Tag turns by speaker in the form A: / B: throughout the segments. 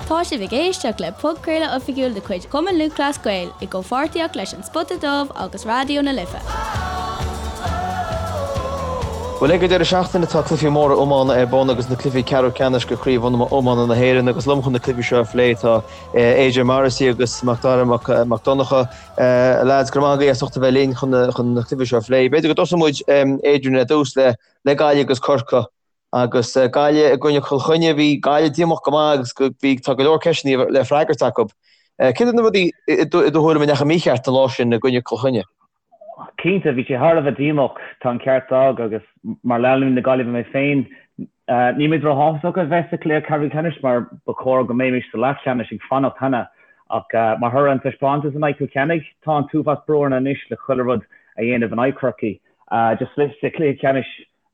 A: Tá sibh ag éisteacht le podchraoladh oifigiúil de chuid Chumann Lúthchleas Gael i gcomhpháirtíocht leis An Spota Dubh agus Raidió na Life.
B: Bhuel, ag an deireadh seachtaine tá cluichí móra iomána ar bun agus na cluichí ceathrú ceannais de Chraobh Iomána na hÉireann agus liom chun na cluichí seo a phlé tá Adrian Morrissey agus Macdara Mac Donncha. A lads, go raibh maith agaibh as ucht a bheith linn chun na cluichí seo a phlé. B'fhéidir go dtosóidh muid, Adrian, ar dtús le Gaillimh agus Corcaigh. Agus Gaillimh i gcoinne Chill Chainnigh, bhí Gaillimh díomách go maith agus bhí, tá go leor ceisteanna le freagairt acu. Céard iad na rudaí i do thuairim a ndeachaigh mícheart an lá sin i gcoinne Chill Chainnigh?
C: Cinnte, bhí sé thar a bheith díomách, tá an ceart agat agus mar leanúnaí na Gaillimhe mé féin, níl muid róshásta a bheith sa chluiche ceathrú ceannais mar ba chóir go mbeimis sa leathcheannais ag fanacht cheana ach mar thoradh an taispeántas in aghaidh Chill Chainnigh, tá an t-uafás brú orainn anois le chuile rud a dhéanamh in aghaidh Chorcaí. Just sa chluiche ceannais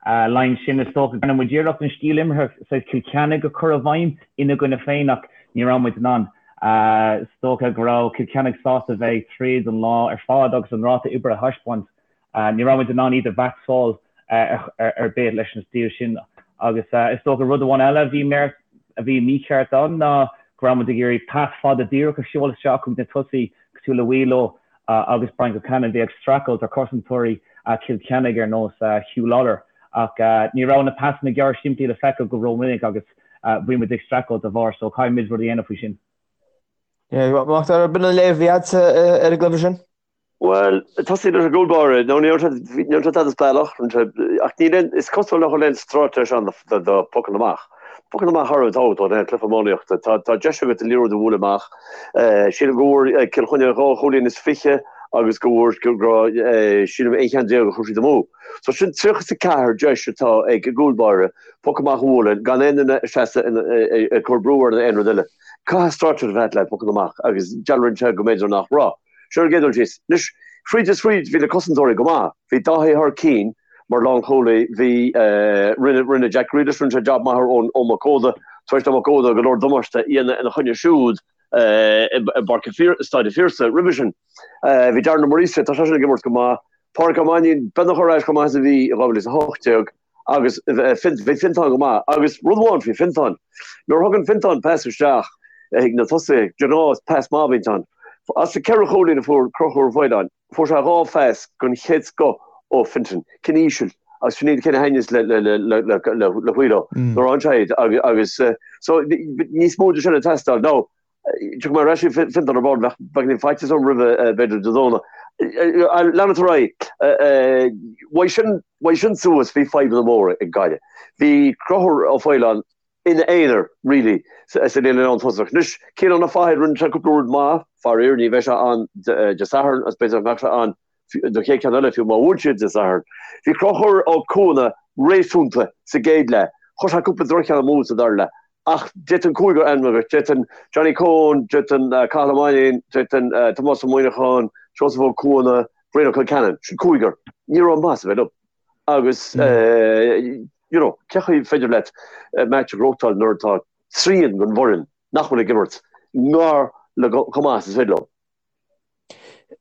C: Laighean sin, is dócha go ndearna muid iarracht an stíl imeartha saghas Cill Chainnigh a chur i bhfeidhm ina gcoinne féin ach ní raibh muid in ann. Is dócha go raibh Cill Chainnigh sásta bheith ag troid an lá ar fad agus an ráta oibre a thaispeáint. Ní raibh muid in ann iad a mheaitseáil ar bith leis an stíl sin agus is dócha rud amháin eile a bhí a bhí mícheart ann ná go raibh muid ag iarraidh pas fada díreach a sheoladh isteach chuig na tosaithe cosúil le Wheelo agus Brian Concannon, bhí ag streachailt ar chosantóirí Chill Chainnigh ar nós Huw Lawlor ach ní raibh na pasanna gearr simplí le feiceáil go rómhinic agus bhí muid ag streachailt dá bharr so caithfidh muid rud a dhéanamh faoi sin.
B: Macdara, b'in an léamh a bhí agatsa ar an gcluiche sin?
D: Bhuel, tosaí leis an gcúl báire, nó ní raibh sé tada speisialta, ach níl aon, is cosúil nach bhfuil aon straitéis ann do phocanna amach. Pocanna amach thar a bheith tábhachtach in aon chluiche iománaíochta. Tá deis agat an liathróid a bhualadh amach. Sílim go bhfuair Cill Chainnigh 22 chúilín agus go bhfuair, go raibh, sílim, 11 cheann a chuir siad amú. So sin 34 deis atá ag an gcúl báire poc amach a bhualadh gan aon duine ag seasamh ag cur brú air nó aon rud eile. Caithfidh straitéis a bheith le pocanna amach agus dealraíonn sé go mb'fhéidir nach raibh. Sin ar an gcéad dul síos. Anois, fríd is fríd, bhí na cosantóirí go maith. Bhí Dáithí thar cinn mar lánchúlaí. Bhí, rinne, rinne Jack Grealish, rinne sé jab maith ar Eoin Mac Óda, tar éis do Mac Óda go leor damáiste a dhéanamh ina choinne siúd i bPáirc an, Staid an Phiarsaigh roimhe sin. Bhí Darren Ó Muiríosa, tá seisean ag imirt go maith. Pádraic Ó Mainnín, beagnach ar ais chomh maith is a bhí i 2018. Agus bhí Fintán go maith. Agus rud amháin faoi Fintán, nuair a thugann Fintán pas isteach chuig na tosaithe, de ghnáth is pas maith a bhíonn ann. As na ceithre chúilín a fuair Conchúr Ó Faoláin, fuair sé dhá phas den chéad scoth ó Fintan, cinn íseal, agus sin iad na cinn a thaitníos le Wheelo nuair a fhaigheann sé iad. Agus so níos mó de sin ag teastáil. Now, Tiocfaidh mé ar ais chuig Fintán ar ball, bheadh beagáinín faitíos orm roimhe b'fhéidir Dé Domhnaigh. Leanfaidh ar aghaidh. Uaidh sin, uaidh sin suas bhí fadhbanna móra ag Gaillimh. Bhí Conchúr Ó Faoláin ina aonar really sa líne lántosach. Anois, Ciarán Ó Fathaigh, rinne sé cúpla rud maith, faraor ní bheidh sé ann Dé Sathairn agus b'fhéidir nach mbeadh sé ann don chéad cheann eile fiú má bhuann siad Dé Sathairn. Bhí Conchúr Ó Cuana réasúnta sa gcéad leath. Chuir sé cúpla droch-cheann amú sa dara leath. Ach d'fhéadfainn cúigear a ainmniú duit. D'fhéadfainn Johnny Coen, d'fhéadfainn Cathal Ó Mainnín, d'fhéadfainn Tomás Ó Muíneacháin, Seosamh Ó Cuana, Brian Ó Concheanainn. Sin cúigear. Ní raibh maitheas ar bith leo. Agus you know, cé chaoi féidir leat match a ghnóthachtáil nuair atá trian den bhfoireann nach bhfuil ag imirt ngar le chomh maith is is féidir leo.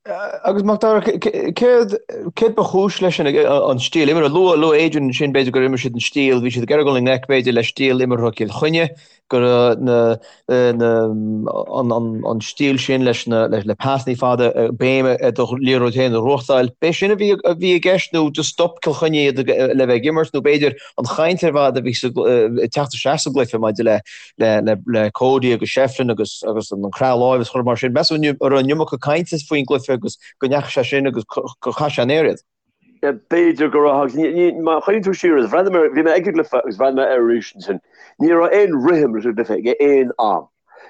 B: Agus Macdara, céard céard ba chúis leis an an stíl imeartha? Luaigh luaigh Adrian ansin b'fhéidir gur imir siad an stíl, bhí siad ag iarraidh dul i ngleic b'fhéidir le stíl imeartha Chill Chainnigh, go raibh na na an an an stíl sin leis na le le pasannaí fada béim ar do liathróid féin a ghnóthachtáil. B'é sin a bhí a bhí i gceist nó just stop Cill Chainnigh iad le bheith ag imirt nó b'fhéidir an chaint ar fad a bhí sa ag teacht isteach sa gcluiche maidir le le Cody agus Shefflin agus agus an croitheadh láimhe is chuile mar sin. Meas tú an raibh an iomarca cainte faoin gcluiche agus go ndeachaigh sé sin agus gur chaith sé an aer iad?
D: B'fhéidir go raibh agus má chuimhníonn tú siar, bhreathnaigh mé, bhí mé ag an gcluiche agus bhreathnaigh mé air arís ansin. Ní raibh aon rithim leis an gcluiche ag aon am.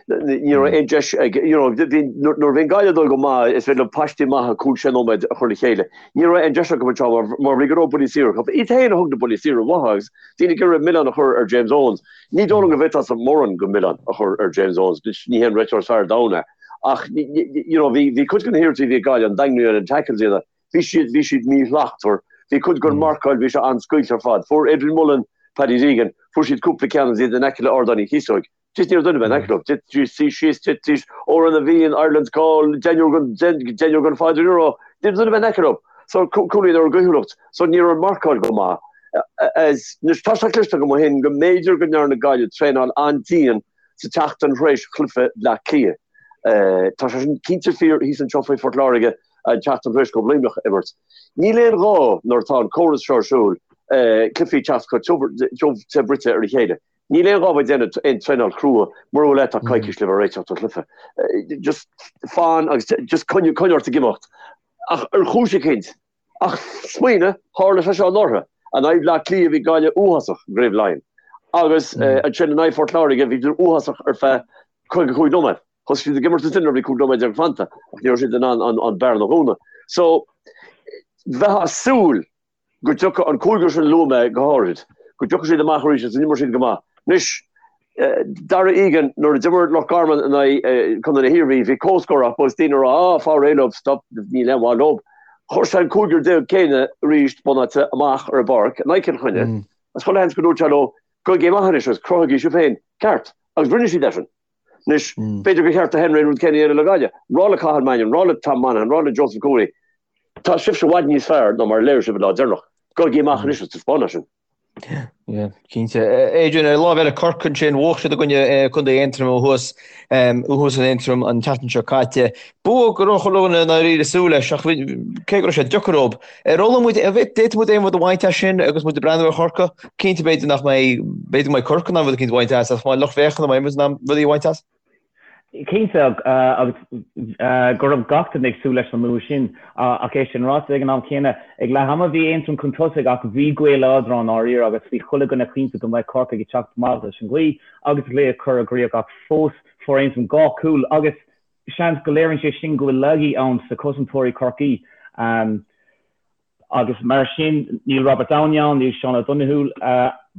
D: Ní raibh aon deis ag, you know, bhí, nuair a bhíonn Gaillimh ag dul go maith, is féidir leo paistí maithe cúig sé nóiméad a chur le chéile. Ní raibh aon deis acu anseo mar, mar bhí go leor buillí saora acu. Iad féin a thug na buillí saora uathu agus daoine ag iarraidh milleán a chur ar James Owens. Ní dóigh liom go bhféadfása mórán den mhilleán a chur ar James Owens, ní hé an réiteoir is fearr ar domhan é. Ach, you know, bhí, bhí cuid de na hiarrachtaí a bhí ag Gaillimh, an daingniú ar na tackles a dhéanamh, bhí siad, bhí siad míshlachtmhar. Bhí cuid den mharcáil, bhí sé an-scaoilte ar fad. Fuair Adrian Mullen, Paddy Deegan, fuair siad cúpla ceann agus iad in aice le Ardán Uí Chíosóig. Just ní raibh duine ar bith in aice leo. Thitidís síos, thitidís, Órán na bhFiann, Ireland's Call, deichniúr den, deichniúr den fad, you know. Ní raibh duine ar bith in aice leo. So, cúilín ar a gcaoithiúlacht. So, ní raibh an marcáil go maith. Anois, tá sé cloiste agam ó shin go mb'fhéidir go ndearna Gaillimh traenáil an-dian. sa tseachtain tar éis chluiche Bhleá Cliath. Tá sé sin cinnte fíor thíos anseo faoi Phort Láirge an tseachtain tar éis dóibh Luimneach a imirt. Níl aon ghá nuair atá an córas seo ar siúl cluichí teacht chomh tiubh te bruite ar a chéile. Níl aon ghá bheith ag déanamh aon traenáil chrua mura bhfuil tá coicís le bheith réiteach don chluiche. Just fan agus just coinnigh ort ag imeacht. Ach ar chúis eicínt, ach smaoinigh, tharla sé seo anuraidh. In aghaidh Bhleá Cliath bhí Gaillimh uafásach i gCraobh Laighean. Agus ansin in aghaidh Phort Láirge bhí siad uafásach ar feadh 55 nóiméad. Thosaigh siad ag imirt ansin nuair a bhí 15 nóiméad fanta ach ní raibh siad in ann an bearna a dhúnadh. So, bheifeá ag súil go dtiocfadh an cúigear sin a luaigh mé go háirid, go dtiocfadh siad amach arís agus go n-imreodh siad go maith. Anois, Darragh Egan, nuair a d'imir Loch Garman in aghaidh Contae na hIarmhí, bhí comhscór acu agus daoine ag rá, ah, fáil réidh leo, stop, níl aon mhaith leo. Chuir sé an cúigear céanna arís, bunáite, amach ar an bpáirc in aghaidh Chill Chainnigh agus chuile sheans go ndúirt sé leo, gabhaigí amach anois agus cruthaigí sibh féin ceart. Agus rinne siad é sin. Anois, b'fhéidir gur cheart do Henry an rud céanna a dhéanamh le Gaillimh. Rá le Cathal Mannion, rá le Tom Monaghan, rá le Joseph Cooney, tá sibhse i bhfad níos fearr ná mar a léirigh sibh an lá deireanach. Gabhaigí amach anois agus taispeáin é sin.
B: Yeah, cinnte. Adrian, ar an lámh eile, Corcaigh ansin, bhuaigh siad i gcoinne Contae Aontroma thuas, thuas in Aontroim an tseachtain seo caite. Bua go raibh chuile dhuine i ndáiríre ag súil leis, ach cé go raibh sé deacair dóibh, ar fhoghlaim muid, an bhféadfadh muid aon rud a bhaint as sin agus muid ag breathnú ar Chorcaigh? Cinnte b'fhéidir nach mbeidh, b'fhéidir go mbeidh Corcaigh in ann rud eicínt a bhaint as, ach mbeidh lucht féachana, mbeidh muid in ann rudaí a bhaint as?
C: Cinnte, agus go raibh gach duine ag súil leis an mbua sin. Ach é sin ráite, ag an am céanna, ag leath ama bhí Aontroim chun tosaigh ach bhí gaoth láidir ann dáiríre agus bhí chuile dhuine cinnte go mbeadh Corcaigh ag teacht amach leis an ghaoth agus an cluiche a chur i gcrích ach fós fuair Aontroim 2 chúl agus seans go léiríonn sé sin go bhfuil laigí ann sa chosantóirí Chorcaí agus mar sin níl Robert Downey ann, níl Seán O'Donoghue,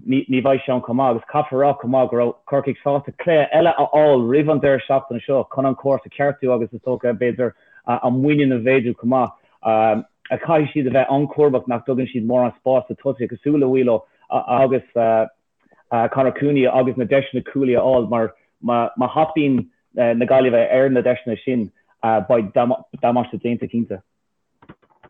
C: ní bheidh sé ann chomh maith agus caithfear a rá chomh maith go raibh Corcaigh sásta cluiche eile a fháil roimh an deireadh seachtaine seo chun an córas a cheartú agus is dócha b'fhéidir a muinín a mhéadú chomh maith. Caithfidh siad a bheith an-chúramach nach dtugann siad mórán spáis do tosaithe cosúil le Wheelo agus Conor Cooney agus na deiseanna cúlaí a fháil mar má thapaíonn na Gaillimhe ar na deiseanna sin beidh damáiste déanta cinnte.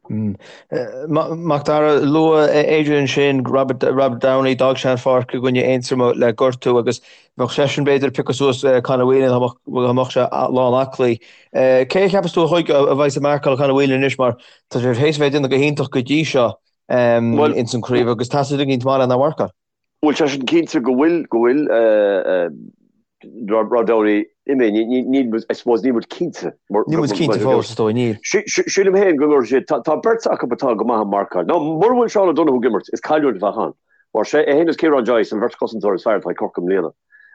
B: Macdara, luaigh Adrian ansin Robert, Robert Downey, d'fhág sé an pháirc i gcoinne Aontroma le gortú agus bheadh seisean b'fhéidir ag piocadh suas Conor Whelan dá mbeadh sé lán aclaí. Cé a cheapas tú a chuig a bheidh ag marcáil Conor Whelan anois mar tá sé théis a bheith ag déanamh go hiontach go dtí seo ins an chraobh agus teastaíonn duine éicint maith lena mharcáil.
D: Bhuel, tá sin cinnte go bhfuil, go bhfuil Rob Downey imithe. Níl muid, I suppose, níl muid cinnte.
B: Níl muid cinnte fós, is dóigh, níl.
D: Sílim féin go gcuirfidh siad, tá beirt acu atá go maith ag marcáil. Now, mura bhfuil Seán O'Donoghue ag imirt, is cailliúint a bheadh ann. Mar sé é féin is Ciarán Joyce an bheirt chosantóir is fearr atá ag Corcaigh i mbliana.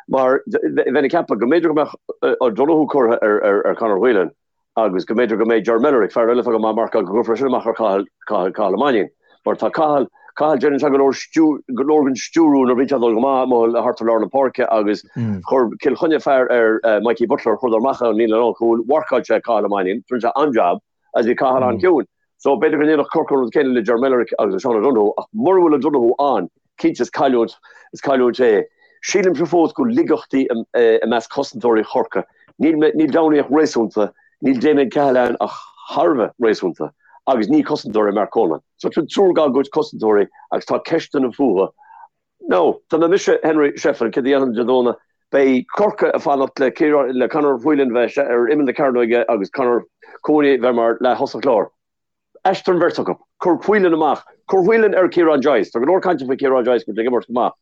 D: Mar bheinn ag ceapadh go mb'fhéidir go mbeadh O'Donoghue curtha ar Conor Whelan, agus go mb'fhéidir go mbeidh Ger Mellerick, fear eile atá go maith ag marcáil, go gcuirfear sin amach ar Cathal, Cathal, Cathal Ó Mainnín. Mar tá Cathal, Cathal, déanann sé go leor stiú, go leor den stiúrú nuair a bhíonn sé ag dul go maith amuigh thart ar lár na páirce agus chuir Cill Chainnigh fear ar Mikey Butler, chuireadar amach ón líne lánchúil, mharcáil sé Cathal Ó Mainnín, rinne sé an-jab agus bhí Cathal an-chiúin. So b'fhéidir go ndéanfadh Corcaigh an rud céanna le Ger Mellerick agus le Seán O'Donoghue ach mura bhfuil O'Donoghue ann, cinnte is cailliúint, is cailliúint é. Sílimse fós go bhfuil laigeachtaí i measc chosantóirí Chorcaí. Níl, níl Downey ach réasúnta, níl Damien Cahalane ach thar a bheith réasúnta agus ní cosantóir é Mark Coleman. So tá triúr dá gcuid cosantóirí agus tá ceisteanna fúthu. Now, dá mbeadh mise Henry Shefflin, céard a dhéanfainn Dé Domhnaigh? Beidh Corcaigh ag fanacht le Ciarán, le Conor Whelan bheith ar imeall na cearnóige agus Conor Cooney bheith mar leath-thosach láir. Aistrigh an bheirt acu. Cuir Whelan amach. Cuir Whelan ar Ciarán Joyce. Tá go leor cainte faoi Ciarán Joyce go bhfuil sé ag imirt go maith.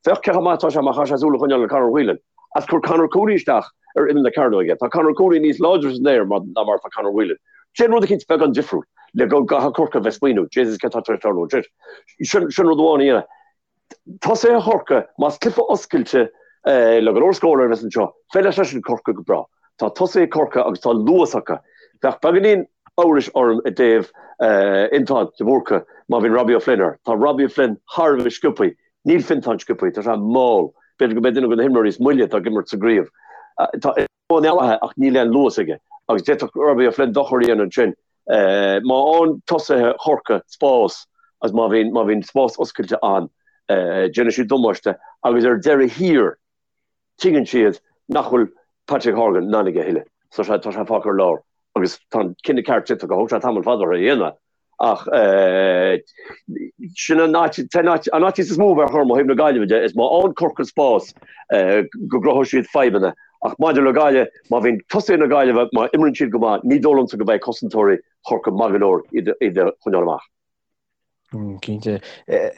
D: Féach cé chomh maith atá sé má chaithfidh sé súil a choinneáil ar Conor Whelan. Agus cuir Conor Cooney isteach ar imeall na cearnóige. Tá Conor Cooney níos láidre san aer ná mar atá Conor Whelan. Déan rud eicínt beagán difriúil le go gcaithfidh Corcaigh a bheith ag smaoineamh, Jesus céard atá tar éis tarlú ansin? Sin rud amháin a dhéanamh. Tosaithe Chorcaí, más cluiche oscailte le go leor scóranna a bheas anseo, feilfidh sé sin Corcaigh go breá. Tá tosaithe Chorcaí agus tá luas acu. Bheadh beagáinín amhrais orm i dtaobh Fhiontán de Búrca má bhíonn Robbie O'Flynn air. Tá Robbie O'Flynn thar a bheith sciobtha. Níl Fiontán sciobtha, tá sé mall. B'fhéidir go mbeidh duine de na himreoirí is moille atá ag imirt sa gcraobh. Tá an-mhaith ach níl aon luas aige agus d'fhéadfadh Robbie O'Flynn dochar a dhéanamh ansin. Má fhaigheann tosaithe Chorcaí spás agus má bhíonn má bhíonn spás oscailte ann, déanfaidh siad damáiste agus ar deireadh thiar tuigeann siad nach bhfuil Patrick Horgan in ann aige a thuilleadh. So tá sé fágtha ar lár agus tá an cinneadh ceart déanta acu. Thóg sé tamall fada orthu é a dhéanamh. Ach sin an áit, an áit is mó a bheadh orm ó thaobh na Gaillimhe de, is má fhaigheann Corcaigh spás go gcruthóidh siad fadhbanna. Ach maidir le Gaillimh, má bhíonn tosaithe na Gaillimhe, má imríonn siad go maith, ní dóigh liomsa go mbeidh cosantóirí Chorcaí maith go leor iad a choinneáil amach.
B: Cinnte.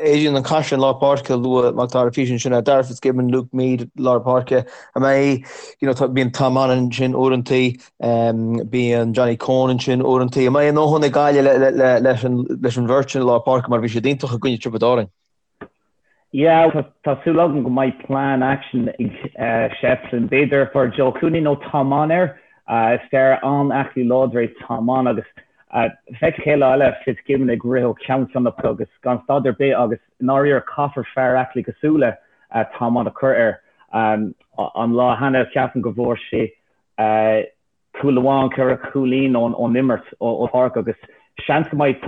B: Adrian, an caisleán lár páirce a luaigh Mac Dara freisin sin é Darragh Fitzgibbon, Luke Meade lár páirce. An mbeidh, you know, tá, bíonn Tom Mannion ansin uaireantaí, bíonn Johnny Coen ansin uaireantaí. An mbeidh a ndóthain ag Gaillimh le, le, le, leis an, leis an bheirt sin i lár páirce mar bhí siad iontach i gcoinne Tiobraid Árann?
C: Yeah, tá, tá súil agam go mbeidh plean action ag Shefflin. B'fhéidir for Joe Cooney nó Tom Mann air. Is fear an-aclaí láidir é Tom Mann agus Feicim chéad lá eile Fitzgibbon ag rith ó cheann ceann na páirce agus gan stad ar bith agus i ndáiríre caithfear fear aclaí cosúil le Tom Mann a chur air. An lá cheana ceapaim go bhfuair sé cúl amháin, 4 chúilín ón imirt ón pháirc agus seans go mbeidh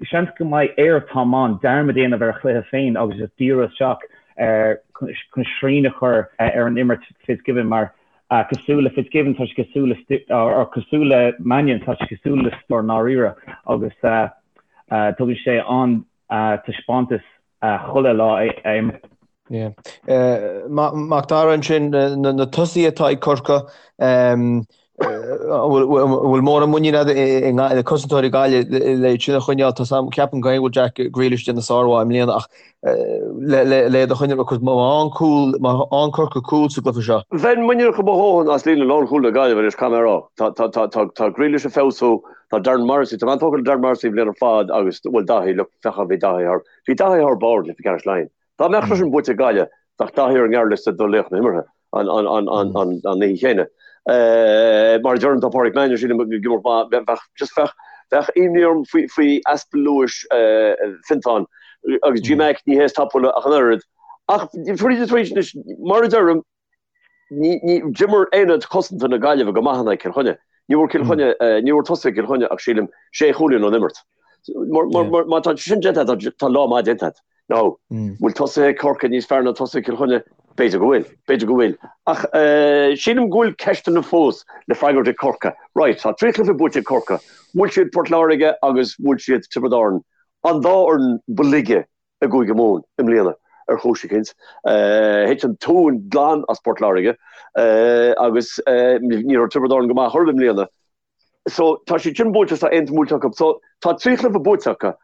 C: seans go mbeidh ar Tom Mann dearmad a dhéanamh ar a chluiche féin agus just díriú isteach ar chun srian a chur ar an imirt Fitzgibbon mar Cosúil le Fitzgibbon, tá sé cosúil le, or cosúil le Mannion, tá sé cosúil le stiúir i ndáiríre agus tugann sé an-taispeántas chuile lá a imríonn.
B: Yeah. Mac Dara ansin, na tosaithe atá ag Corcaigh, an bhfuil mórán muinín agat i na cosantóirí Gaillimh le iad sin a choinneáil? Tá ceapaim go bhfuil Jack Grealish ag déanamh sármhaith i mbliana ach le iad a choinneáil because má fhaigheann cúl, má fhaigheann Corcaigh cúl sa gcluiche seo.
D: Bheinn muiníneach mo dhóthain as líne lánchúil na Gaillimhe anois, caithfidh mé a rá. Tá Grealish ag feabhsú, tá Darren Morrissey, tá mé an-tógtha le Darren Morrissey an bhliain ar fad agus, bhuel Daithí, look, féach bhí Daithí thar, bhí Daithí thar barr i gcluiche ceannais Laighean. Dá mbeadh sé sin buaite ag Gaillimh, bheadh Daithí ar an ngearrliosta do laoch na himeartha an oíche chéanna. Mar a deirim, tá Pádraic Mannion, sílim, ag imirt maith. Bheadh, just bheadh, bheadh imní orm faoi, faoi easpa luais Fiontán agus G Mac, ní hé is tapúla ach an oiread. Ach tríd is tríd anois, mar a deirim, Ní, ní, d'imir aonad cosanta na Gaillimhe go maith in aghaidh Cill Chainnigh. Ní bhfuair Cill Chainnigh, ní bhfuair tosaithe Cill Chainnigh ach sílim sé chúilín ón imirt. Mar, mar, mar, má tá sin déanta agat, tá lá maith déanta agat. Now, bhfuil tosaithe Corcaigh níos fearr ná tosaithe Cill Chainnigh? B'fhéidir go bhfuil, b'fhéidir go bhfuil. Ach sílim go bhfuil ceisteanna fós le freagairt ag Corcaigh. Right, tá 3 chluiche buaite ag Corcaigh. Bhuail siad Port Láirge agus bhuail siad Tiobraid Árann, an dá fhoireann ba laige i gCúige Mumhan i mbliana ar chúis eicínt. Thit an tóin glan as Port Láirge agus ní raibh Tiobraid Árann go maith chor ar bith i mbliana. So tá siad sin buailte tá Aontroim buailte acu. So tá 3 chluiche buaite acu.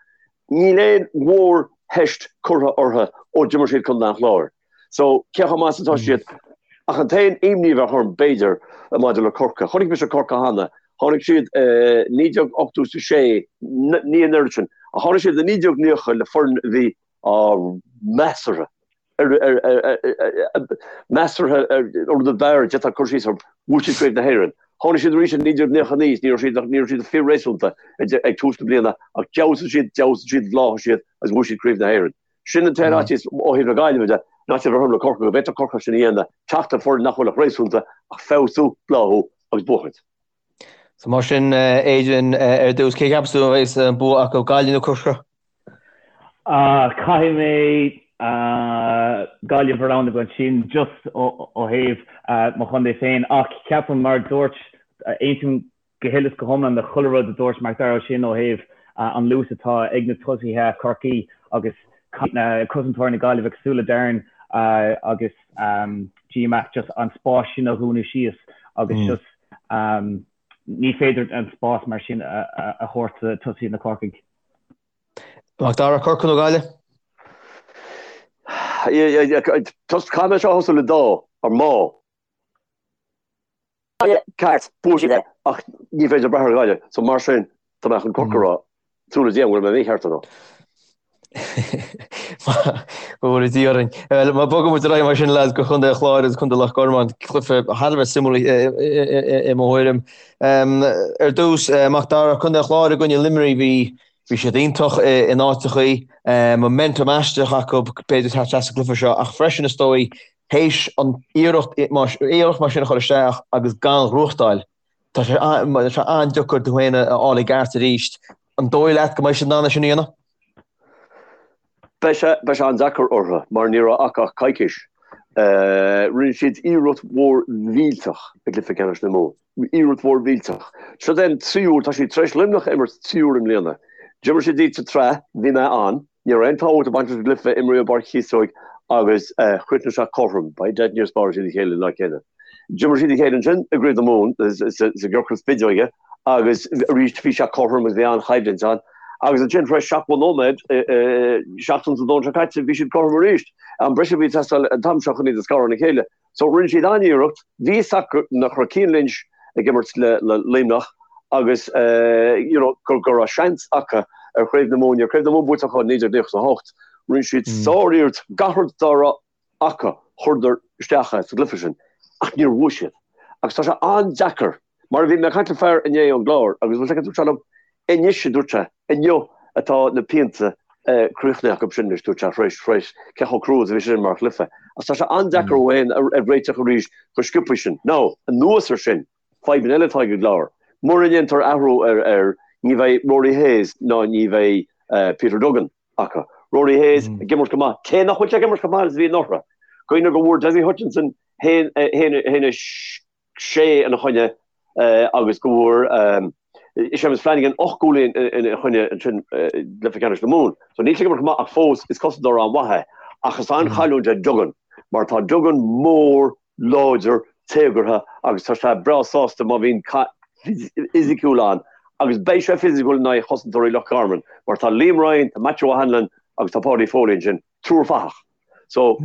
D: Níl aon mhórtheist curtha orthu ó d'imir siad Contae an Chláir. So cé chomh maith is atá siad? Ach an t-aon imní a bheadh orm b'fhéidir maidir le Corcaigh, chonaic mise Corcaigh cheana, tháinig siad i 1986, ní an oiread sin, ach tháinig siad i 1990 le foireann a bhí measartha, measartha ar an rud ab fhearr a d'fhéadfá cur síos orthu, bhuaigh siad Craobh na hÉireann. Tháinig siad arís i 1999 is ní raibh siad, ní raibh siad fíor-réasúnta ag tús na bliana ach d'fheabhsaigh siad, d'fheabhsaigh siad, bhláthaigh siad agus bhuaigh siad Craobh na hÉireann. Sin an t-aon fhaitíos ó thaobh na Gaillimhe de, an fhaitíos a bheadh orm le Corcaigh, go bhféadfadh Corcaigh sin a dhéanamh, teacht le foireann nach bhfuil ach réasúnta, ach feabhsú, bláthú agus buachaint.
B: So mar sin, Adrian, ar dtús, cé cheapas tú a bheas an bua acu, Gaillimh nó Corcaigh?
C: Caithfidh mé Gaillimh a roghnú ansin, just ó thaobh mo chontae féin, ach ceapaim, mar a dúirt, aontaím go huile is go hiomlán le chuile rud a dúirt Mac Dara ansin ó thaobh an luas atá ag na tosaithe Chorcaí agus cosantóirí na Gaillimhe cosúil le Darren agus G Mac just an spás sin a dhúnadh síos agus just ní féidir an spás mar sin a thabhairt do tosaithe na Corcaigh.
B: Mac Dara, Corcaigh nó Gaillimh?
D: Caithfidh mé seo a thosú le dá, ar má. Ceart, buafaidh siad é, ach ní féidir brath ar Ghaillimh, so mar sin, tá mé chun Corcaigh a rá, súil le Dia an bhfuil mé mícheart or not.
B: Go bhfóire Dia orainn. Bhuel, má bogann muid ar aghaidh mar sin, lads, go Chontae an Chláir agus Contae Loch Garman, cluiche thar a bheith suimiúil i mo thuairim. Ar dtús, Mac Dara, Contae an Chláir i gcoinne Luimnigh, bhí bhí siad iontach in áiteachaí, momentum aisteach acu, b'fhéidir teacht isteach sa gcluiche seo, ach freisin is dóigh, théis an iarracht iarracht mar sin a chur isteach agus gan ghnóthachtáil, tá sé tá sé an-deacair tú féin a fháil i gceart arís. An dóigh leat go mbeidh siad in ann é sin a dhéanamh?
D: Beidh sé beidh sé an-deacair orthu mar ní raibh acu ach coicís. Rinne siad iarracht mhór mhillteach i gcluiche ceannais na Mumhan. Iarracht mhór mhillteach. Seo é an tríú huair, tá siad tar éis Luimneach a imirt trí huaire i mbliana. D'imir siad iad sa tsraith, bhí mé ann, ní raibh aon tábhacht ag baint leis an gcluiche, imríodh i bPáirc Chíosóig agus chríochnaigh sé cothrom, by dad níor spáráil siad a chéile an lá céanna. D'imir siad a chéile ansin i gCraobh na Mumhan sa gciorcal spideoige agus arís bhí sé cothrom agus bhí an-choimhlint ann. Agus ansin tar éis 70 nóiméad, seachtain sa Domhnach seo caite, bhí siad cothrom arís. Am breise a bhí ag teastáil an t-am seo chun iad a scaradh óna chéile. So rinne siad an-iarracht, bhí fhios acu nach raibh Cian Lynch ag imirt le Luimneach agus you know go go raibh seans acu ar Chraobh na Mumhan, ní raibh Craobh na Mumhan buaite acu ó 1998. Rinne siad sár-iarracht, gach rud dá raibh acu chuireadar isteach é sa gcluiche sin ach níor bhuaigh siad. Agus tá sé an-deacair, mar a bhí mé ag caint le fear inné ón gClár agus bhfuil sé dúirt sé liom, Anois, a dúirt sé, inniu atá na pianta críochnaithe acu sin anois, dúirt sé, tar éis, tar éis cé chomh crua is a bhí sé sin mar chluiche. Ach tá sé an-deacair ó aon a réiteach arís chomh sciobtha sin. Now, anuas ar sin, fadhbanna eile atá ag an gClár. Mura ndéantar athrú ar, ar, ní bheidh Rory Hayes ná ní bheidh Peter Duggan acu. Rory Hayes ag imirt go maith, cé nach bhfuil sé ag imirt chomh maith is a bhí anuraidh. Cuimhnigh go bhfuair Dessie Hutchinson haon, haon, haon a 6 ina choinne agus go bhfuair Séamus Flanagan 8 gcúilín ina choinne ansin i gcluiche ceannais na Mumhan. So níl sé ag imirt chomh maith ach fós is cosantóir an-mhaith é. Ach is an-chailliúint é Duggan mar tá Duggan mór, láidir, téagartha agus tá sé breá sásta má bhíonn cath fisiciúil ann agus beidh sé fisiciúil in aghaidh chosantóirí Loch Garman mar tá Liam Ryan, tá Matthew O'Hanlon agus tá Paudie Foley ansin, triúr fathach. So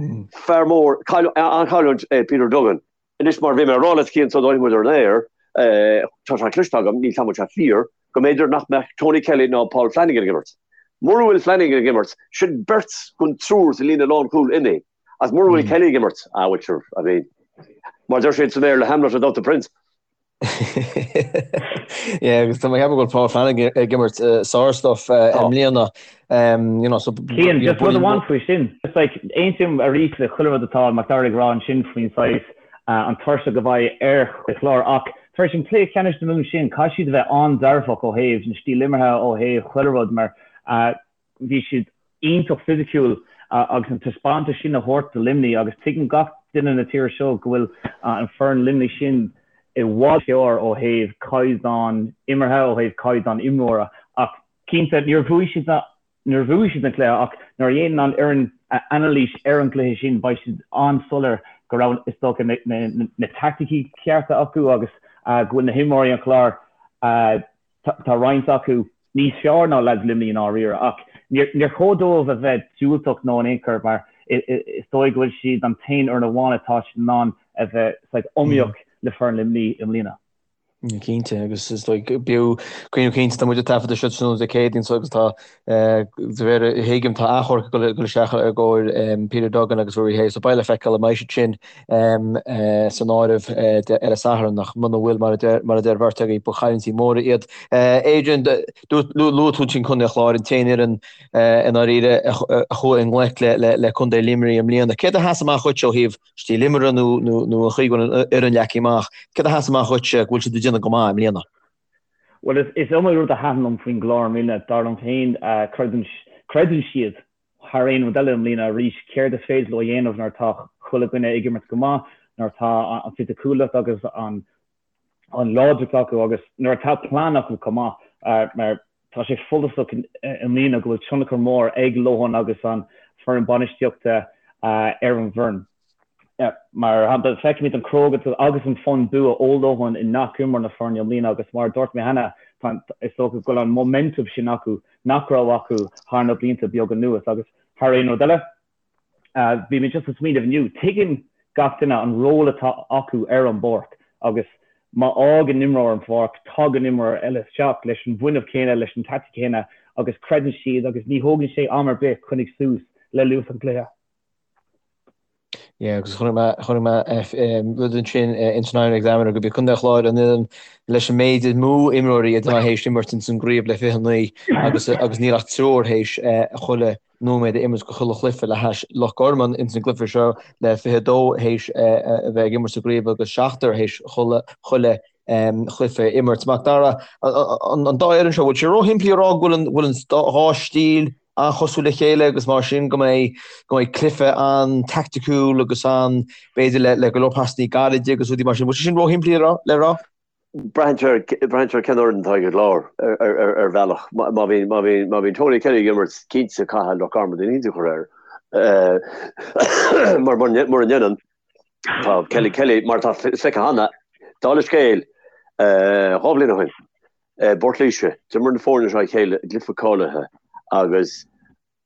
D: fear mór, an-chailliúint é Peter Duggan. Anois, mar a bhí mé a rá leat Cian sula dtáinig muid ar an aer, tá sé cloiste agam, níl 's agam an bhfuil sé fíor, go mb'fhéidir nach mbeadh Tony Kelly ná Paul Flanagan ag imirt. Mura bhfuil Flanagan ag imirt, sin beirt den triúr sa líne lánchúil imithe. Agus mura bhfuil Kelly ag imirt, ah bhuel sure, I mean, mar a deir siad sa mBéarla, Hamlet without the prince.
B: Yeah, agus tá mé ag ceapadh go bhfuil Paul Flanagan ag imirt sár-stuff i mbliana.
C: You know, so Cian, just rud amháin faoi sin. Just like, aontaím arís le chuile rud atá Macdara ag rá ansin faoin saghas an tuirseach a bheidh ar an Chlár ach tar éis an cluiche ceannais na Mumhan sin, caithfidh siad a bheith an-dearfach ó thaobh na stíl imeartha, ó thaobh chuile rud mar Bhí siad iontach fisiciúil agus an taispeántas sin a thabhairt do Luimnigh agus tuigeann gach duine na tíre seo go bhfuil an foireann Luimnigh sin i bhfad fearr ó thaobh caighdeán imeartha, ó thaobh caighdeán imreora. Ach cinnte, níor bhuaigh siad níor bhuaigh siad an cluiche ach nuair a dhéanann an fhoireann anailís ar an gcluiche sin beidh siad an-soiléir go raibh is dócha na teaicticí cearta acu agus go bhfuil na himreoirí an Chláir Tá roinnt acu níos fearr ná leaids Luimnigh i ndáiríre ach níor chóir dóibh a bheith diúltach nó in aon chor mar is dóigh go bhfuil siad an t-aon fhoireann amháin atá siad in ann a bheith saghas iomaíoch le foireann Luimnigh i mbliana.
B: Cinnte, agus is dóigh b'fhiú cuimhneamh cinnte tá muid ag taifeadadh seo tráthnóna Dé Céadaoin so agus tá de réir a thuigim tá achomharc ag dul isteach i gcomhair Peter Duggan agus Rory Hayes so beidh le feiceáil an mbeidh siad sin san áireamh ar an Satharn ach muna bhfuil, mar a deir an bheirt agaibh, ba chailliúintí móra iad. Adrian, luaigh tú ansin Contae an Chláir, an t-aon fhoireann i ndáiríre a chuaigh i ngleic le Contae Luimnigh i mbliana. Céard a sheas amach dhuit ó thaobh stíl imeartha nó an chaoi go bhfuil an fhoireann leagtha amach? Céard a sheas amach dhuit go bhfuil siad ag déanamh go maith i mbliana?
C: Bhuel, is iomaí rud a thaitin liom faoin gClár i mbliana. Dar liom féin, creideann siad thar aon rud eile i mbliana arís céard is féidir leo a dhéanamh nuair atá chuile dhuine ag imirt go maith, nuair atá an fisiciúlacht agus an láidreacht acu agus nuair atá plean acu chomh maith mar tá sé follasach i mbliana go bhfuil tionchar mór ag Lohan agus an foireann bainistíochta ar an bhfoireann. Mar shampla, feicimid an chrógacht agus an fonn bua ó Lohan i ngach imreoir na foirne i mbliana agus mar a dúirt mé cheana, is dócha go bhfuil an momentum sin acu nach raibh acu thar na blianta beaga anuas. Agus thar aon rud eile, bhí mé just ag smaoineamh inniu, tuigeann gach duine an ról atá acu ar an bpáirc agus má fhágann imreoir an pháirc, tagann imreoir eile isteach leis an bhfuinneamh céanna, leis an taithí céanna agus creideann siad agus ní thógann sé am ar bith coinnigh suas le luas an chluiche.
B: Yeah, agus chonaic mé, chonaic mé rud ansin ins an Irish Examiner gurb iad Contae an Chláir an fhoireann leis an méid is mó imreoirí atá théis imirt ins an gcraobh le 29 agus agus níl ach triúr théis chuile nóiméad a imirt go chuile chluiche le hais Loch Garman ins an gcluiche seo le 22 théis a bheith ag imirt sa gcraobh agus seachtar théis chuile chuile chluiche a imirt. Mac Dara, an dá fhoireann seo, bhfuil sé róshimplí a rá go bhfuil an bhfuil an dhá stíl an-chosúil le chéile agus mar sin go mbeidh go mbeidh cluiche an-taicticiúil agus an b'fhéidir le le go leor pasannaí gairide agus rudaí mar sin. Bhfuil sé sin róshimplí le rá?
D: Braitheann sé ar cén fhoireann atá ag an gClár ar bhealach. Má bhíonn Tony Kelly ag imirt, cinnte caithfidh Loch Garman duine éicint a chur air. Mar mura ndéanann, tá Kelly Kelly, mar atá feicthe cheana, dála scéil, 2 bhliain ó shin, i bPort Laoise, d'imir na foirne seo a chéile i gcluiche cáilithe agus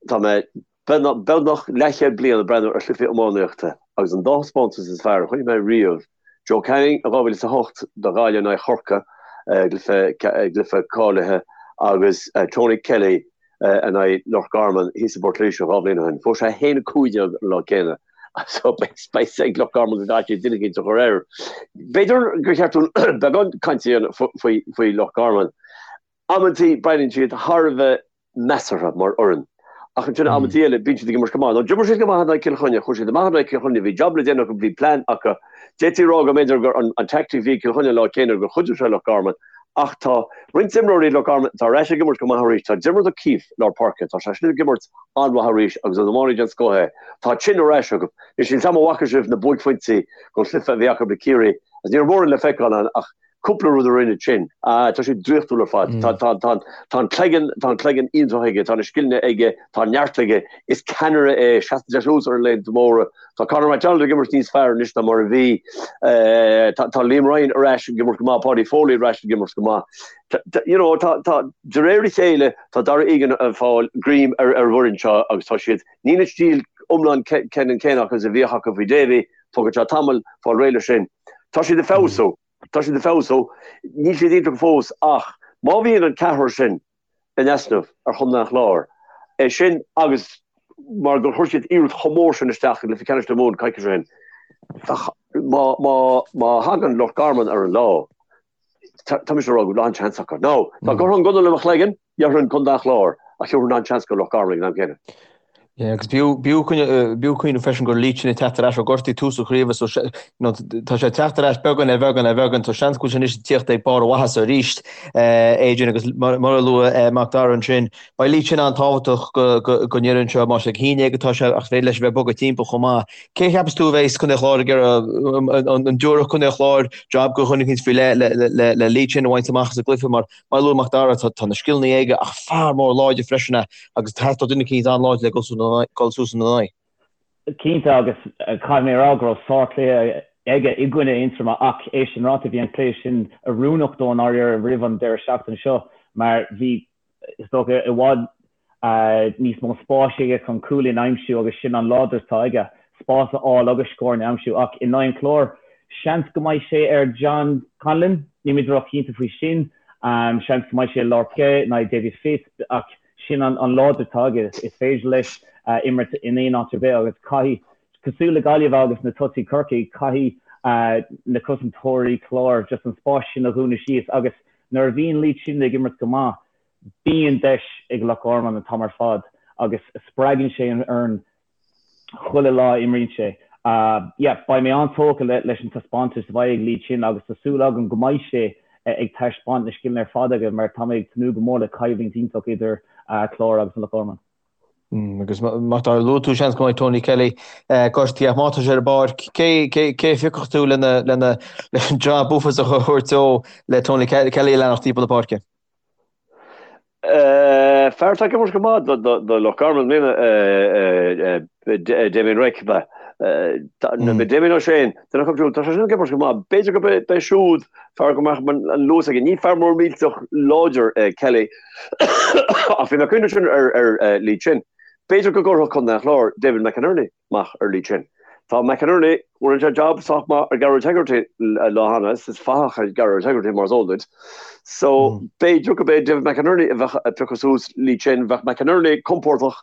D: Tá mé beagnach leathchéad bliain ag breathnú ar chluichí iománaíochta agus an dá thaispeántas is fearr a chonaic mé riamh, Joe Canning in 2008 do Ghaillimh in aghaidh Chorcaí i gcluiche cáilithe agus Tony Kelly in aghaidh Loch Garman thíos i bPort Laoise 2 bhliain ó shin. Fuair sé 1-15 an lá céanna so beidh ag Loch Garman go gcaithfidh siad duine éicint a chur air. B'fhéidir gur cheart dúinn beagán cainte a dhéanamh faoi Loch Garman. Amantaí breathnaíonn siad thar a bheith measartha mar fhoireann. Ach ansin amantaí eile bíonn siad ag imirt go maith. Now d'imir siad go maith in aghaidh Cill Chainnigh, chuaigh siad amach in aghaidh Cill Chainnigh, bhí jab le déanamh acu, bhí plean acu. D'fhéadfaí a rá go mb'fhéidir gur an tactic a bhí ag Cill Chainnigh an lá céanna gur chuidigh sé le Loch Garman. Ach tá roinnt imreoirí Loch Garman atá ar ais ag imirt go maith arís. Tá Diarmuid O'Keeffe i lár páirce, tá sé sin ag imirt an-mhaith arís agus is iománaí den scoth é. Tá Chin ar ais acu. Anois níl 's a'm an bhfaca sibh na buaicphointí den chluiche a bhí acu le Ciarraí agus ní raibh mórán le feiceáil ann ach Cúpla rud a rinne Chin. Ah, tá sé draíochtúil ar fad. Tá, tá, tá, tá an cloigeann, tá an cloigeann iontach aige, tá na scileanna aige, tá an neart aige. Is ceannaire é, seasann sé suas ar laethanta móra. Tá Conor McDonald ag imirt níos fearr anois ná mar a bhí. Tá, tá Liam Ryan ar ais ag imirt go maith, Paudie Foley ar ais ag imirt go maith. Tá, tá, you know, tá, tá, de réir a chéile, tá Darragh Egan ag fáil greim ar, ar an bhfoireann seo agus tá siad, níl an stíl iomlán ceannann céanna acu is a bhíodh acu faoi Davy, tógfaidh sé tamall fáil réidh leis sin. Tá siad ag feabhsú. Tá siad ag feabhsú. Níl siad iontach fós ach má bhíonn an ceathrar sin in easnamh ar Chontae an Chláir, é sin agus mar gur chuir siad iarracht chomh mór sin isteach i gcluiche ceannais na Mumhan coicís ó shin, má, má, má thagann Loch Garman ar an lá, tá mise ag rá go bhfuil an-seans acu. Now, dá gcuirfeá an gunna le mo chloigeann, Déarfainn Contae an Chláir ach thabharfainn an-seans do Loch Garman ag an am céanna.
B: Yeah, agus b'fhiú cuimhneamh freisin go raibh Lee Chin ag teacht ar ais ó gortú tús an chraoibhe so tá sé ag teacht ar ais beagán ar bheagán ar bheagán so seans go bhfuil sé anois ag tíocht ag barr a mhaitheasa arís Adrian agus mar a luaigh Mac Dara ansin beidh Lee Chin an-tábhachtach don fhoireann seo más ag haon déag atá sé ach féidir leis a bheith ag bogadh timpeall chomh maith. Cé a cheapas tú a bheas Contae an Chláir ag iarraidh an dtabharfadh Contae an Chláir jab do dhuine éicint faoi leith le Lee Chin a bhaint amach as an gcluiche mar Mar a luaigh Mac Dara, tá na scileanna aige ach fear mór láidir freisin é agus theastódh duine eicínt an-láidir le dul suas ina aghaidh.
C: Cinnte, agus caithfidh mé a rá go raibh sárchluiche aige i gcoinne Aontroma ach é sin ráite, bhí an cluiche sin oiriúnach dó i ndáiríre roimh an deireadh seachtaine seo mar bhí, is dócha, i bhfad níos mó spáis aige chun cúilín a aimsiú agus sin an láidreacht atá aige, spás a fháil agus scóranna a aimsiú. Ach in aghaidh an Chláir, seans go mbeidh sé ar John Conlon, nílimid róchinnte faoi sin. Seans go mbeidh sé i lár páirce in aghaidh Davy Fitz ach sin an láidreacht atá aige, is féidir leis imirt in aon áit ar bith agus caithfidh, cosúil le Gaillimh agus na tosaithe Corcaigh, caithfidh na cosantóirí Chláir just an spás sin a dhúnadh síos agus nuair a bhíonn Lee Chin ag imirt go maith, Bíonn deis ag Loch Garman an t-am ar fad agus spreagann sé an fhoireann chuile lá a imríonn sé. Yeah, beidh mé an-tógtha leis an taispeántas a bheidh ag Lee Chin agus tá súil agam go mbeidh sé ag taispeáint na scileanna ar fad aige mar tá mé ag tnúth go mór le coimhlint iontach idir Clár agus Loch Garman.
B: Agus Mac Dara, luaigh tú seans go mbeidh Tony Kelly gortaithe ach má tá sé ar an bpáirc, cé cé a phiocfadh tú lena lena leis an job uafásach a thabhairt dó le Tony Kelly a leanacht timpeall na páirce?
D: Fear atá ag imirt go maith do Loch Garman i mbliana, Damien Reck, ab ea? Damien O'Shane, duine acu siúd, tá sé sin ag imirt go maith. B'fhéidir go b'é siúd fear go mbeadh an luas aige. Ní fear mór millteach láidir é Kelly ach bhí mé ag cuimhneamh sin ar Lee Chin. B'fhéidir go gcuirfeadh Contae an Chláir David McInerney amach ar Lee Chin. Tá McInerney, rinne sé jab sách maith ar Gearóid Hegarty lá cheana, is fathach é Gearóid Hegarty mar is eol duit. So, b'fhéidir go b'é David McInerney a bheadh ag piocadh suas Lee Chin, bheadh McInerney compordach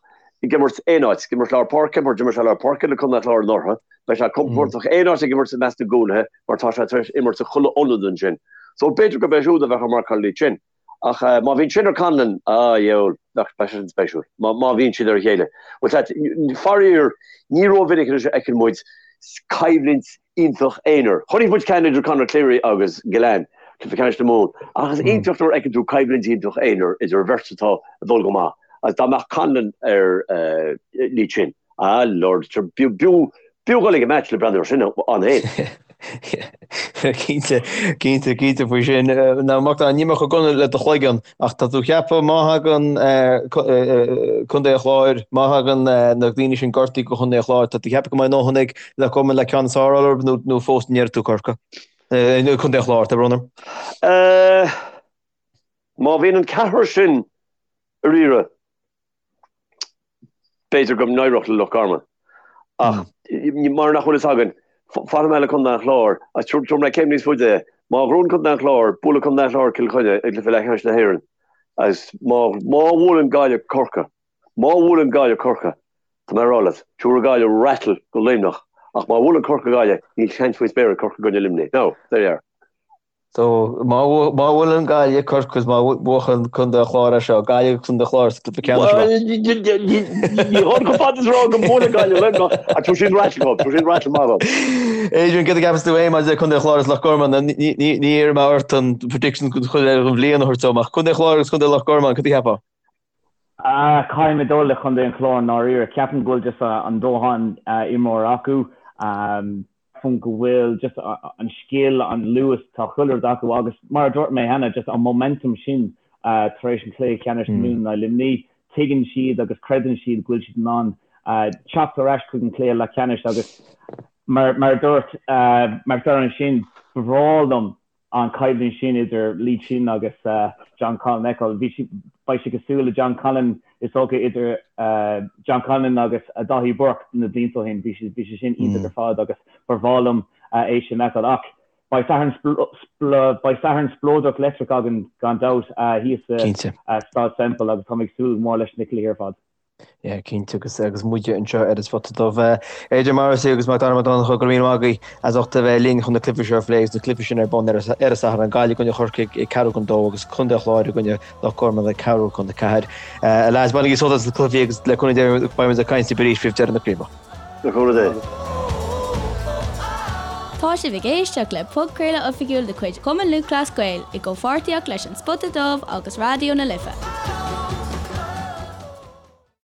D: ag imirt aon áit, ag imirt lár páirce mar d'imir sé lár páirce le Contae an Chláir anuraidh, beidh sé compordach aon áit ag imirt i measc na gcúlaithe mar tá sé tar éis imirt i chuile ionad ansin. So, b'fhéidir go b'é siúd a bheadh ag marcáil Lee Chin. Ach má bhíonn sin ar Conlon, a dheabhail, bheadh sé sin spéisiúil. Má bhíonn siad ar a chéile. Bhuel, sea, faraor, ní rómhinic anois a fheiceann muid coimhlint iontach aonair. Chonaic muid ceann idir Conor Cleary agus Gillane, cluiche ceannais na Mumhan, ach is iontach nuair a fheiceann tú coimhlint iontach aonair idir bheirt atá ag dul go maith. Agus dá mbeadh Conlon ar Lee Chin, ah Lord, b'fhiú dul ag an match le breathnú ar sin ann féin.
B: Cinnte, cinnte, cinnte faoi sin. Now Mac Dara, níl mé chomh dona le do chloigeann, ach tá tú ag ceapadh má thagann Contae an Chláir, má thagann na daoine sin gortaithe do Chontae an Chláir, tá tú ag ceapadh go mbeidh a ndóthain ag Loch Garman le ceann is fearr a fháil orthu nó nó fós an ndéarfaidh tú Corcaigh? Contae an Chláir, tá brón orm.
D: Má bhíonn an ceathrar sin ar iarraidh, B'fhéidir go n-éireodh le Loch Garman ach mar nach bhfuil fhios againn, fanfaidh mé le Contae an Chláir agus tabharfaidh mé céim níos faide é. Má ghnóthaíonn Contae an Chláir, buailfidh Contae an Chláir Cill Chainnigh i gcluiche leathcheannais na hÉireann agus má má bhuaileann Gaillimh Corcaigh, má bhuaileann Gaillimh Corcaigh, tá mé ag rá leat, tabharfaidh Gaillimh rattle go Luimneach ach má bhuaileann Corcaigh Gaillimh, níl seans faoin spéir ag Corcaigh i gcoinne Luimnigh. Now, there you are.
B: So, má bhuaileann Gaillimh Corcaigh is má bhuachann Contae an Chláir é seo, Gaillimh agus Contae an Chláir sa gcluiche ceannais
D: seo. Ní ghabhann chomh fada is a rá go mbuailfidh Gaillimh Luimneach ach tabharfaidh siad rattle dóibh, tabharfaidh siad rattle maith dóibh.
B: Adrian, céard a cheapas tú féin maidir le Contae an Chláir agus Loch Garman? Ní iarrfaidh mé ort an prediction don chuile an bhliain a thabhairt dom ach Contae an Chláir agus Contae Loch Garman, cad a cheapfá?
C: Caithfidh mé dul le Contae an Chláir i ndáiríre. Ceapaim go bhfuil just an dóthain imreoir acu. Ceapaim go bhfuil just an scil, an luas, tá chuile rud acu agus mar a dúirt mé cheana, just an momentum sin tar éis an chluiche ceannais na Mumhan in aghaidh Luimnigh, tuigeann siad agus creideann siad go bhfuil siad in ann teacht ar ais chuig an chluiche leathcheannais agus mar a dúirt Macdara ansin, ba bhreá liom an choimhlint sin idir Lee Chin agus John Conlon a fheiceáil. Bhí sé, beidh sé cosúil le John Conlon, is dócha, idir John Conlon agus Daithí Burke na blianta ó shin. Bhí sé, bhí sé sin iontach ar fad agus ba bhreá liom é sin a fheiceáil. Ach beidh Satharn, beidh Satharn spleodrach leictreach againn gan dabht thíos sa Staid Semple agus táim ag súil go mór leis na cluichí ar fad.
B: Yeah, cinnte, agus agus muide anseo ar an Spota Dubh. Adrian Morrissey agus Mac Dara Mac Donncha, go raibh míle maith agaibh as ucht a bheith linn chun na cluichí seo a phlé agus na cluichí sin ar bun ar an Satharn, Gaillimh i gcoinne Chorcaigh ag ceathrú chun dó agus Contae an Chláir i gcoinne Loch Garman ag ceathrú chun a ceathair. A lads, bainigí sult as na cluichí agus le cúnamh Dé beidh muid ag caint libh arís roimh deireadh na craoibhe.
D: Le cúnamh Dé.
A: Tá sibh ag éisteacht le podchraoladh oifigiúil de chuid Chumann Lúthchleas Gael i gcomhpháirtíocht leis An Spota Dubh agus Raidió na Life.